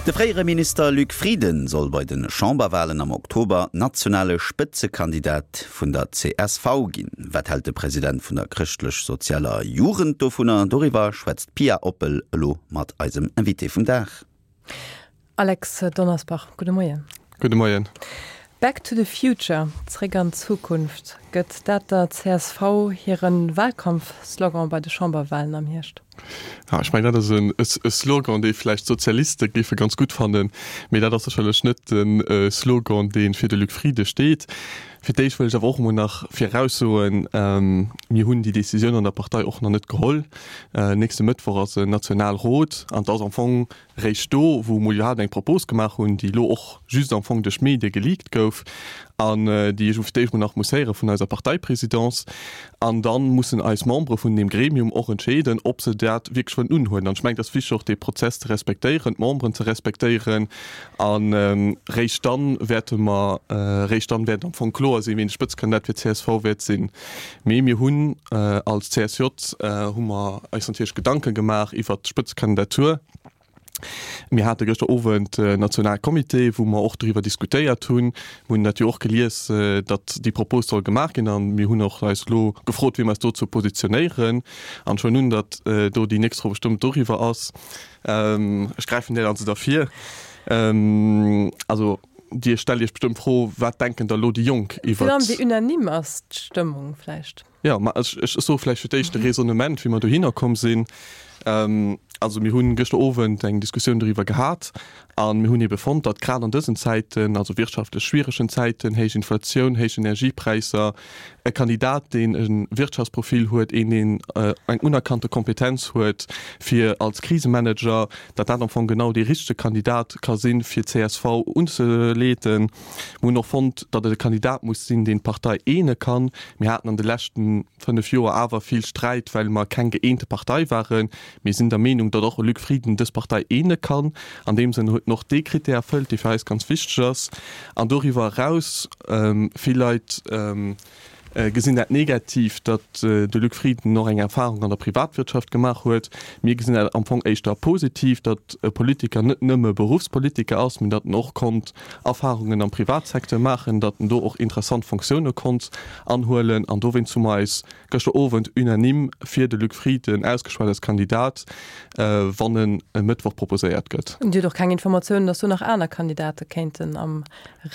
De fréiere Minister Luc Frieden soll bei de Chamberwalen am Oktober nationale Spëtzekandidat vun der csv ginn. Wat hält de President vun der Chrëschtlech-Sozialer Jugend dovunner? Doriwwer schwätzt d'Pia Oppel elo mat eisem Invité vum Dag. Alex Donnersbach, gudde Moien. Gudde Moien. Back to the future, zréck an d'Zukunft, gëtt dat der csv hire Wahlkampfslogan bei de Chamberwahlen am Hierscht? Ja, ech mengen, dat ass e Slogan, dee vläicht d'Sozialiste géife ganz gutt fannen, mee dat ass sécherlech net de Slogan, dee fir de Luc Frieden steet. Fir d'éischt wëll ech awer och emol nach viraussoen, Mir hunn déi Décisioun an der Partei och nach net geholl. Nächste Mëttwoch ass en Nationalrot an et ass am Fong Réischt do, wou emol iwwerhaapt eng Propos gemaach hunn, déi elo och just am Fong duerch d'Medie geleakt gouf an déi ech fir d'éischt mol nach muss héiere vun eiser Parteiprésidence. An da mussen eis Membere vun deem Gremium och entscheeden, ob se dat wierklech wëllen unhuelen. An ech mengen, et ass wichteg och dee Prozess ze respektéieren, d'Memberen ze respektéieren. A réischt dann wäerte mer, réischt dann wäert am Fong kloer sinn, wien de Spëtzekandidat fir d'CSV wäert sinn. Mee mir hunn als CSJ hu mer eis natierlech Gedanke gemaach iwwert d'Spëtzekandidatur. Mir hate gëschter Owend en Nationalcomité, wou mer och doriwwer diskutéiert hunn. Mir hunn dat jo och gelies, datt déi Propos soll gemaach ginn a mir hunn och eis elo gefrot, wéi mer eis dozou positionéieren. An ech huelen un, datt do déi nächst Fro bestëmmt doriwwer ass. Ech gräifen där also da vir. Also Dir stellt Iech bestëmmt d'Fro, Wat denken da lo déi Jonk iwwert. Virun allem wéi unanime ass d'Stëmmung vläicht? Jo, ma ech, ech soe vläicht fir d'éischt de Raisonnement, wéi mer dohinner komm sinn. Also mir hunn gëschter Owend eng Diskussioun doriwwer gehat a mir hunn ebe fonnt, datt grad an dësen Zäiten, also wirtschaftlech schwieregen Zäiten, héich Inflatioun, héich Energiepräisser, e Kandidat, deen e Wirtschaftsprofil huet, een, deen eng unerkannte Kompetenz huet fir als Krisemanager, datt dat am Fong genau dee richtege Kandidat ka sinn, fir csv unzeleeden. Mir hunn och fonnt, datt et e Kandidat muss sinn, deen d'Partei eene kann. Mir haten an de leschte 5 Joer awer vill Sträit, well mer keng gëeente Partei waren. Mir sinn der Meenung, datt och e Luc Frieden dës Partei eene kann. An deem Sënn huet en och dee Krittär erfëllt, dee fir eis ganz wichteg ass. An doriwwer eraus, vill Leit gesinn dat negativ, datt de Luc Frieden och eng Erfahrung an der Privatwirtschaft gemaach huet. Mir gesinn dat am Fong éischter positiv, datt e Politiker net nëmme Beruffspolitiker ass, mee datt en och konnt Erfahrungen am Privatsecteur maachen, datt en do och interessant Fonctioune konnt anhuelen. An dowéinst hu mer eis gëschter Owend unanime fir de Luc Frieden ausgeschwat als Kandidat, wann en e Mëttwoch proposéiert gëtt. Dir hutt och keng Informatiounen, datt do nach aner Kandidate kéinten am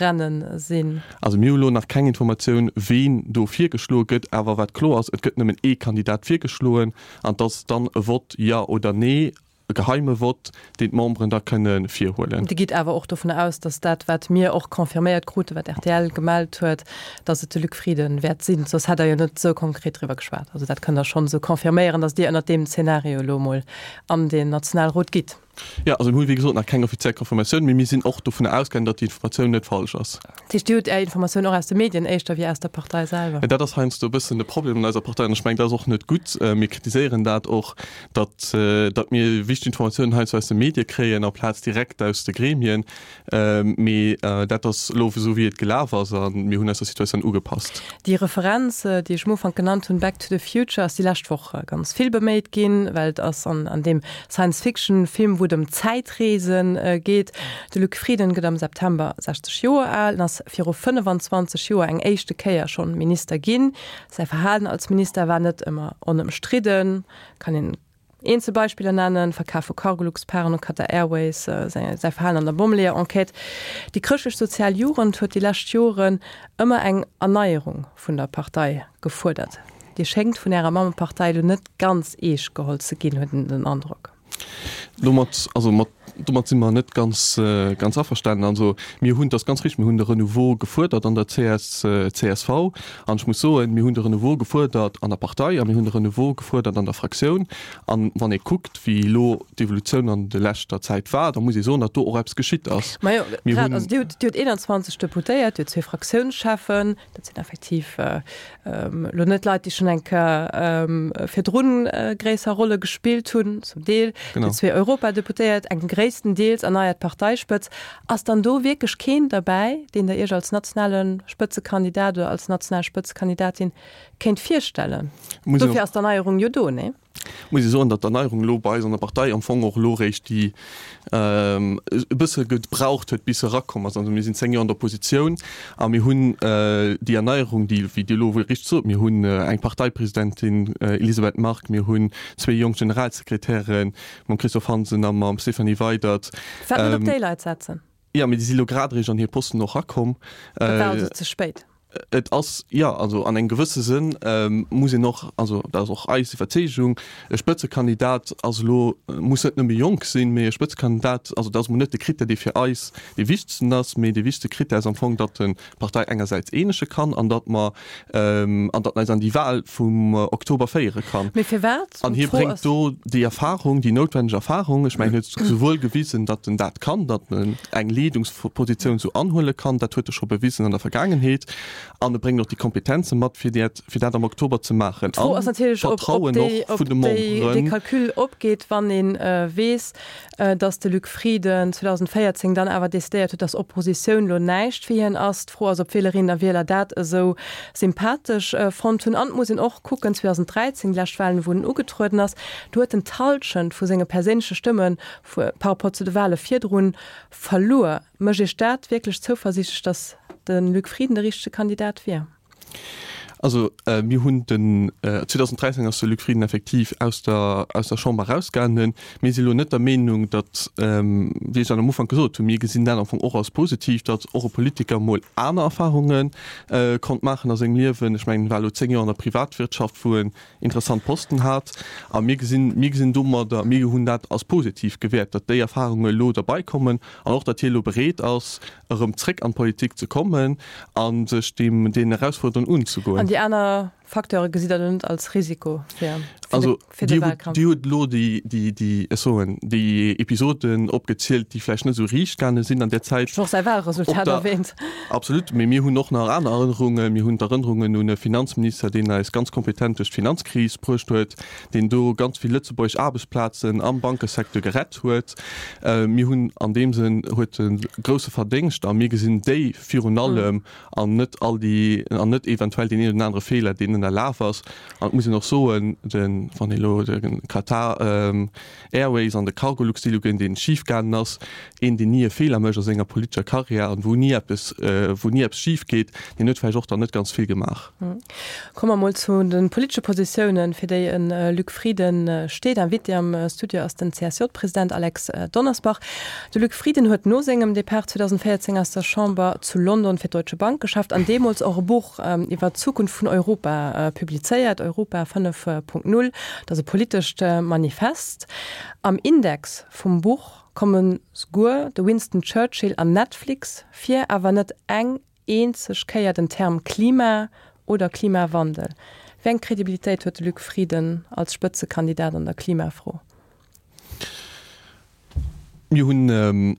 Rennen sinn? Also mir hu lo nach keng Informatioun, ween do virgeschloe gëtt. Awer wat kloer ass, et gëtt nëmmen ee Kandidat virgeschloen an et ass dann e Vott Jo oder Nee. E geheime Vott, deen d'Memberen da kënne virhuelen. Dir gitt awer och dovun aus, datt dat, wat mir och confirméiert kruten, wat rtl gemellt huet, datt et de Luc Frieden wäert sinn. Soss hätt Der jo net esou konkret driwwer geschwat. Also dat kënnt Der schonn esou confirméieren, datt Dir ënnert deem Zeenario elo emol an den Nationalrot gitt. Jo, also mir hu wéi gesot nach keng offiziell Confirmatioun, mee mir sinn och dovunner ausgaangen, datt déi Informatioun net falsch ass. Dat heescht, Dir hutt Är Informatioun och aus de Medien éischter wéi aus der Partei selwer? Dat ass heiansdo e bëssen de Problem an eiser Partei an ech mengen, dat ass och net gutt. Mir kritiséieren dat och, datt datt mir wichteg Informatiounen heiansdo aus de Medie kréien amplaz direkt aus de Gremien. Mee dat ass elo esou wéi et gelaf ass a mir hunn eis der Situatioun ugepasst. Déi Referenz, déi ech um Ufank genannt hunn, Back to the Future, ass déi lescht Woch ganz vill beméit ginn, well et ass an an deem Science-Fiction-Film, wou et ëm Zäitreese geet. De Luc Frieden gëtt am September 60 Joer al en ass viru 25 Joer eng éischte Kéier schonn Minister ginn. Säi Verhalen als Minister war net ëmmer onëmstridden, kann een eenzel Beispiller nennen, Verkaf vu Cargolux-Paren u Qatar Airways, säi Verhalen an der Bommeleeër-Enquête. Déi chrëschtlech-sozial Jugend huet déi lescht Joren ëmmer eng Erneierung vun der Partei gefuerdert. Dir schéngt vun Ärer Mammepartei elo net ganz eescht geholl ze ginn, huet een den Androck. Domat, also mat, domat si mer net ganz, ganz averstanen. Also mir hunn, dat ass ganz richtig, mir hunn de Renouveau gefuerdert an der CS, csv. An ech muss soen, mir hunn de Renouveau gefuerdert an der Partei a mir hunn de Renouveau gefuerdert an der Fraktioun. An wann ee kuckt, wéi elo d'Evolutioun an de leschter Zäit war, da muss ee soen, datt do och eppes geschitt ass. Majo, grad, also Dir hutt, Dir hutt 21 Deputéiert, Dir hutt zwee Fraktiounscheffen, dat sinn effektiv elo net Leit, déi schonn eng Kéier virdrun gréisser Rolle gespillt hunn, zum Deel. Déi zwee Europadeputéiert, eng gréisstendeels erneiert Parteispëtz. Ass dann do wierklech keen derbäi, deen Der Iech als nationale Spëtzekandidat oder als national Spëtzekandidatin kéint virstellen? Dofir ass d'Erneierung jo do, nee? Muss ee soen, datt d'Erneierung elo bei eis an der Partei am Fong och elo réischt déi e bësse gebraucht huet, bis se erakomm ass. Also mir sinn 10 Joer an der Oppositioun a mir hunn déi Erneierung, déi, wéi Dir elo richteg sot, mir hunn eng Parteipresidentin, Elisabeth Margue, mir hunn zwee jonk Generalsekretären, mam Christophe Hansen a mam Stéphanie Weydert. Firwat net op déi Leit setzen? Jo, mee déi si elo grad eréischt an hir Posten och erakomm. Dat war also ze spéit. Et ass, jo, also an engem gewësse Sënn muss een och, also dat ass och eis Iwwerzeegung, e Spëtzekandidat ass elo, muss net nëmme jonk sinn, mee e Spëtzekandidat, also dat ass emol net de Critère, dee fir eis dee wichtegsten ass, mee dee wichtegste Critère ass am Fong, datt en d'Partei engersäits eenege kann an datt mer, an datt en eis an déi Wahl vum Oktober féiere kann. Mee firwat? An hie bréngt do déi Erfahrung, déi noutwenneg Erfahrung. Ech mengen, hien huet souwuel gewisen, datt en dat kann, datt en eng Leedungspositioun esou anhuele kann, dat huet e scho bewisen an der Vergaangenheet, an e bréngt och déi Kompetenze mat, fir dat, fir dat am Oktober ze maachen. D'Fro ass natierlech, ob, ob déi, ob déi, dee Calcul opgeet, wann ee weess, datt de Luc Frieden 2014 dann awer decidéiert huet, datt Oppositioun lo näischt fir hien ass. D'Fro ass, ob d'Wielerinnen a Wieler dat esou sympathesch fonnt hunn. An et muss een och kucken, 2013, déi lescht Walen, wou en ugetrueden ass, do huet en d'Hallschent vu senge perséinleche Stëmme par rapport zu de Wale virdrun verluer. Mécht Iech dat wierklech zouversiichtlech, datt de Luc Frieden de richtege Kandidat wier? Also mir hunn den 2013 ass de Luc Frieden effektiv aus der aus der Chamber erausgaangen. Mir si lo net der Meenung, datt, wéi ech dat am Ufank gesot hunn, mir gesinn dat am Fong och als positiv, datt och e Politiker mol aner Erfarunge konnt maachen a sengem Liewen. Ech mengen, en war elo 10 Joer an der Privatwirtschaft, wou en interessant Posten hat. A mir gesinn, mir gesinn domadder, mir hunn dat als positiv gewäert, datt déi Erfarunge elo derbaikommen an och, datt hie elo bereet ass, erëm zréck an d'Politik ze kommen a sech deem, deenen Erausfuerderungen unzegoen. An déi aner Facteure gesitt Der elo net als Risiko fir, fir de, fir de Wahlkampf? Dir hutt elo déi, déi, déi, ech soen, déi Episoden opgezielt, déi vläicht net esou riicht gaange sinn an där Zäit. Ech hunn och säi Wahlresultat erwähnt. Absolut, mee mir hunn och nach aner Erënnerungen. Mir hunn d'Erënnerungen un e Finanzminister, deen eis ganz kompetent duerch d'Finanzkris bruecht huet, deen do ganz vill lëtzebuergesch Aarbechtsplazen am Bankesecteur gerett huet. Mir hunn an deem Sënn huet e grousse Verdéngscht a mir gesinn déi virun allem an net all déi an net eventuell deen een oder anere Feeler, deen ënnerlaf ass. An et muss een och soen, de wann ee elo de Qatar Airways an de Cargolux Deal uginn, dee schifgaangen ass, een deen ni e Feeler mécht a senger politescher Karriär an wou ni eppes wou ni eppes schif geet, deen huet vläicht och dann net ganz vill gemaach. Komme mer mol zu de politesche Positiounen, fir déi e Luc Frieden steet. Invité am Studio ass den CSJ-President Alex Donnersbach. De Luc Frieden huet no sengem Depart 2014 aus der Chamber zu London fir d'Deutsche Bank geschafft an deemools och e Buch iwwer d'Zukunft vun Europa publizéiert, Europa 5.0. Dat ass e politescht Manifest. Am Index vum Buch komme souguer de Winston Churchill an Netflix vir, awer net eng eenzeg Kéier den Term Klima oder Klimawandel. Wéi eng Kredibilitéit huet de Luc Frieden als Spëtzekandidat an der Klimafro? Mir hunn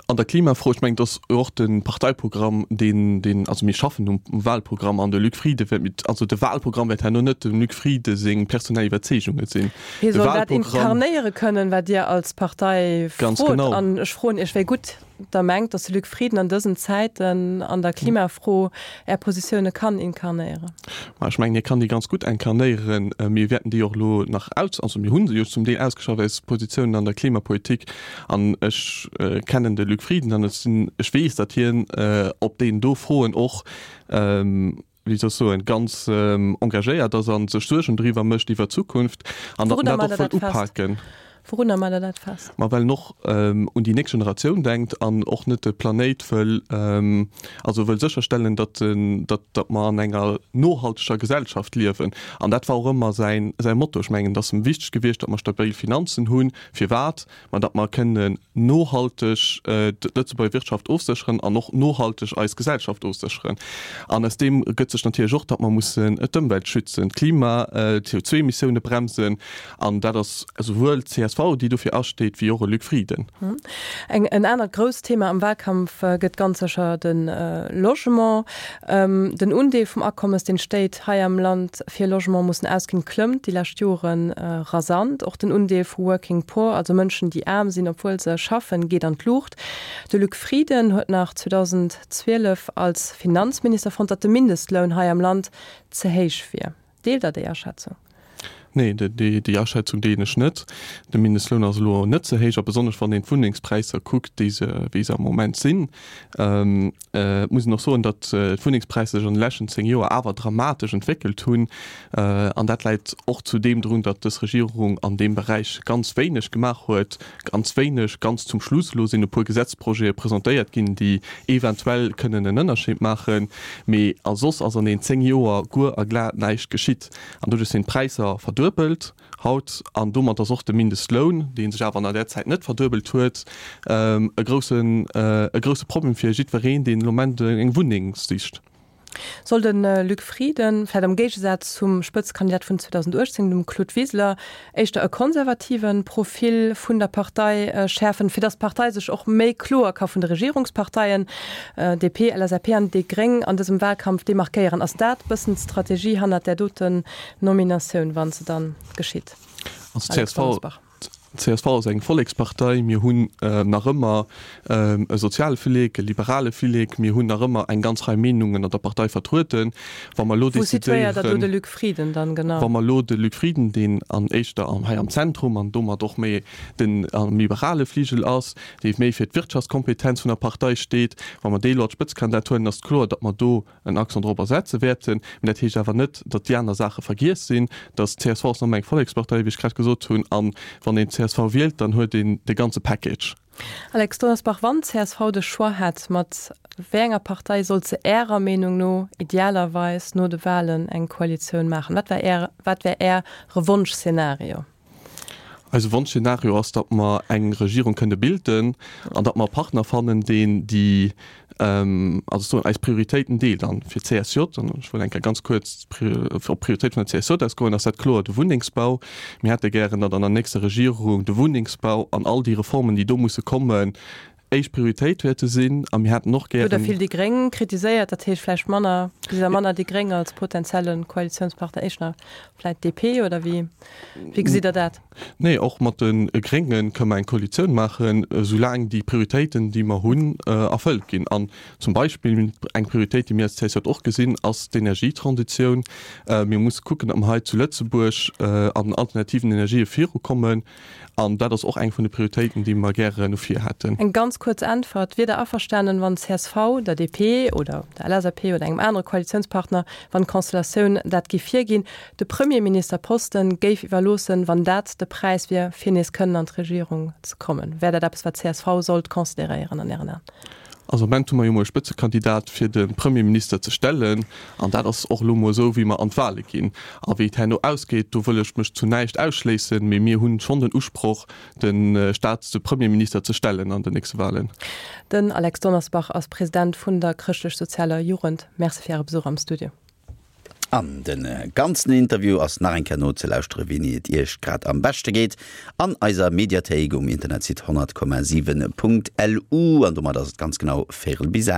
an der Klimafro, ech mengen, et ass och de Parteiprogramm, deen, deen, also mir schaffen um Wahlprogramm an de Luc Frieden wäert mit, also de Wahlprogramm wäert herno net dem Luc Frieden seng personell Iwwerzeegunge sinn. Hie soll dat inkarnéiere kënnen, wat Dir als Partei frot. An ech froen Iech, wéi gutt Der mengt, datt de Luc Frieden an dësen Zäiten an der Klimafro Är Positioune kann inkarnéieren? Ma ech mengen, hie kann déi ganz gutt inkarnéieren. Mir wäerten déi och elo nach aus, also mir hu se jo zum Deel ausgeschafft, eis Positiounen an der Klimapolitik. An ech kennen de Luc Frieden an ech sinn, ech weess, datt hien op deenen do Froen och, wéi soll ech soen, ganz engagéiert ass a sech Suergen driwwer mécht iwwer d'Zukunft an datt en dat och wëllt upaken. Wourunner maacht Der dat fest? Ma well en och un déi nächst Generatioun denkt an och net de Planéit wëll, also wëll sécherstellen, datt datt datt mer an enger nohalteger Gesellschaft liewen. An dat war och ëmmer säin säi Motto. Ech mengen, et ass em wichteg gewiescht, datt mer stabil Finanzen hunn. Firwat? Ma datt mer kënnen nohalteg d'Lëtzebuerger Wirtschaft ofsécheren an och nohalteg eis Gesellschaft ofsécheren. An aus deem ergëtt sech natierlech och, datt mer mussen d'Ëmwelt schützen, d'Klima, d'CO2-Emissioune bremsen. An dat ass esouwuel d'CSV, déi dofir asteet, wéi och e Luc Frieden. En anert grousst Thema am Wahlkampf gëtt ganz sécher de Logement. Den Undeel vum Akommes, deen d'Stéit hei am Land fir Logement mussen ausginn, klëmmt déi lescht Jore rasant. Och den Undeel vu Working Poor, also Mënschen, déi aarm sinn, obwuel se schaffen, geet an d'Luucht. De Luc Frieden huet nach 2012 als Finanzminister fonnt, datt de Mindestloun hei am Land ze héich wier. Deelt Der déi Aschätzung? Nee, déi Aschätzung deelen ech net. De Mindestloun ass elo net ze héich, a besonnesch wann een d'Wunnengspräisser kuckt, déi se, wéi se am Moment sinn. Et muss een och soen, datt d'Wunnengspräisser sech an de leschten 10 Joer awer dramatesch entwéckelt hunn. An dat läit och zu deem drun, datt dës Regierung an deem Beräich ganz wéineg gemaach huet. Ganz wéineg, ganz zum Schluss. Elo sinn e puer Gesetzprojete presentéiert ginn, déi eventuell kënnen en Ënnerscheed maachen. Mee a soss ass an deenen 10 Joer guer a glat näischt geschitt. An doduerch sinn d'Präisser verduebelt haut an domat ass och de Mindestloun, dee sech awer an där Zäit net verduebelt huet, e groussen, e grousse Problem fir jiddwereen, deen elo Moment eng Wunneng sicht. Soll de Luc Frieden, vläicht am Géigesaz zum Spëtzekandidat vun 2018, dem Claude Wiseler, éischter e konservative Profil vun der Partei schäerfen, fir datt d'Partei sech och méi kloer ka vun de Regierungsparteien, DP, LSAP an déi Gréng, an dësem Wahlkampf demarkéieren. Ass dat bëssen d'Strategie hannert där doten Nominatioun, wa se dann geschitt? Also csv, csv ass eng Vollekspartei. Mir hunn nach ëmmer e soziale Flillek, e liberale Flillek. Mir hunn nach ëmmer eng ganz Rei Meenungen an der Partei vertrueden. Wa mer elo Wou situéiert Der do de Luc Frieden dann genau? Wa mer elo de Luc Frieden, deen an éischter hei am Zentrum an domat och méi den am liberale Fligel ass, dee méi fir d'Wirtschaftskompetenz vun der Partei steet, wa mer dee elo als Spëtzekandidat huelen, ass et kloer, datt mer do en Accent dorobber setze wäerten. Mä dat heescht awer net, datt déi aner Saache vergiess sinn. Datt d'CSV ass nach ëmmer eng Vollekspartei, wéi ech grad gesot hunn. A wann een csv wielt, dann huet een de ganze Package. Alex Donnersbach, Wann csv de Choix hätt, mat wéi enger Partei sollt se Ärer Meenung no idealerweis no de Wahlen eng Koalitioun maachen? Wat wär Är, wat wär Äre Wonschszenario? Eise Wonschszenario ass, datt mer eng Regierung kënne bilden an datt mer e Partner fannen, deen déi, also soen, eis Prioritéiten deelt. An fir d'CSJ, an ech wëll eng Kéier ganz kuerz op d'Prioritéit vun der CSJ ausgoen, ass dat kloer de Wunnengsbau. Mir hätte gären, datt an der nächster Regierung de Wunnengsbau an all déi Reformen, déi do musse kommen, éischt Prioritéit wäerte sinn. A mir hätten och gären. Hutt Der vill déi Gréng kritiséiert, dat heescht vläicht manner, gesitt Der manner déi Gréng als potentielle Koalitiounspartner, éischter vläicht DP oder wéi, wéi gesitt Der dat? Nee, och mat de Grénge kënne mer eng Koalitioun maachen, soulaang déi Prioritéiten, déi mer hunn, erfëllt ginn. An zum Beispill eng Prioritéit, déi mir als CSJ och gesinn, ass d'Energietransitioun. Mir musse kucken, datt mer hei zu Lëtzebuerg an den alternativen Energië virukommen. An dat ass och eng vun de Prioritéiten, déi mer gären no vir hätten. Eng ganz kuerz Äntwert, Wier Der averstanen, wann csv der DP oder der LSAP oder engem anere Koalitiounspartner, wann d'Constellatioun dat géif virginn, de Premierministerposten géif iwwerloossen, wann dat de Präis wier, fir nees kënnen an d'Regierung ze kommen? Wär dat eppes, wat csv sollt consideréieren an Ären Aen? Also am Moment hu mer jo mol e Spëtzekandidat fir de Premierminister ze stellen an dat ass och elo mol esou wéi mer an d'Wahle ginn. A wéi et herno ausgeet, do wëll ech mech zu näischt ausschléissen, mee mir hunn schonn den Usproch de Staats-, de Premierminister ze stellen an den nächste Wahlen. Den Alex Donnersbach ass President vun der Chrëschtlech-Sozialer Jugend. Merci fir Äre Besuch am Studio. An de ganzen Interview ass nach eng Kéier nozelauschteren, wéini et Iech grad am beschte geet, an eiser Mediathéik um Internetsite 100,7.lu. An domat ass et ganz genau véirel bis 8.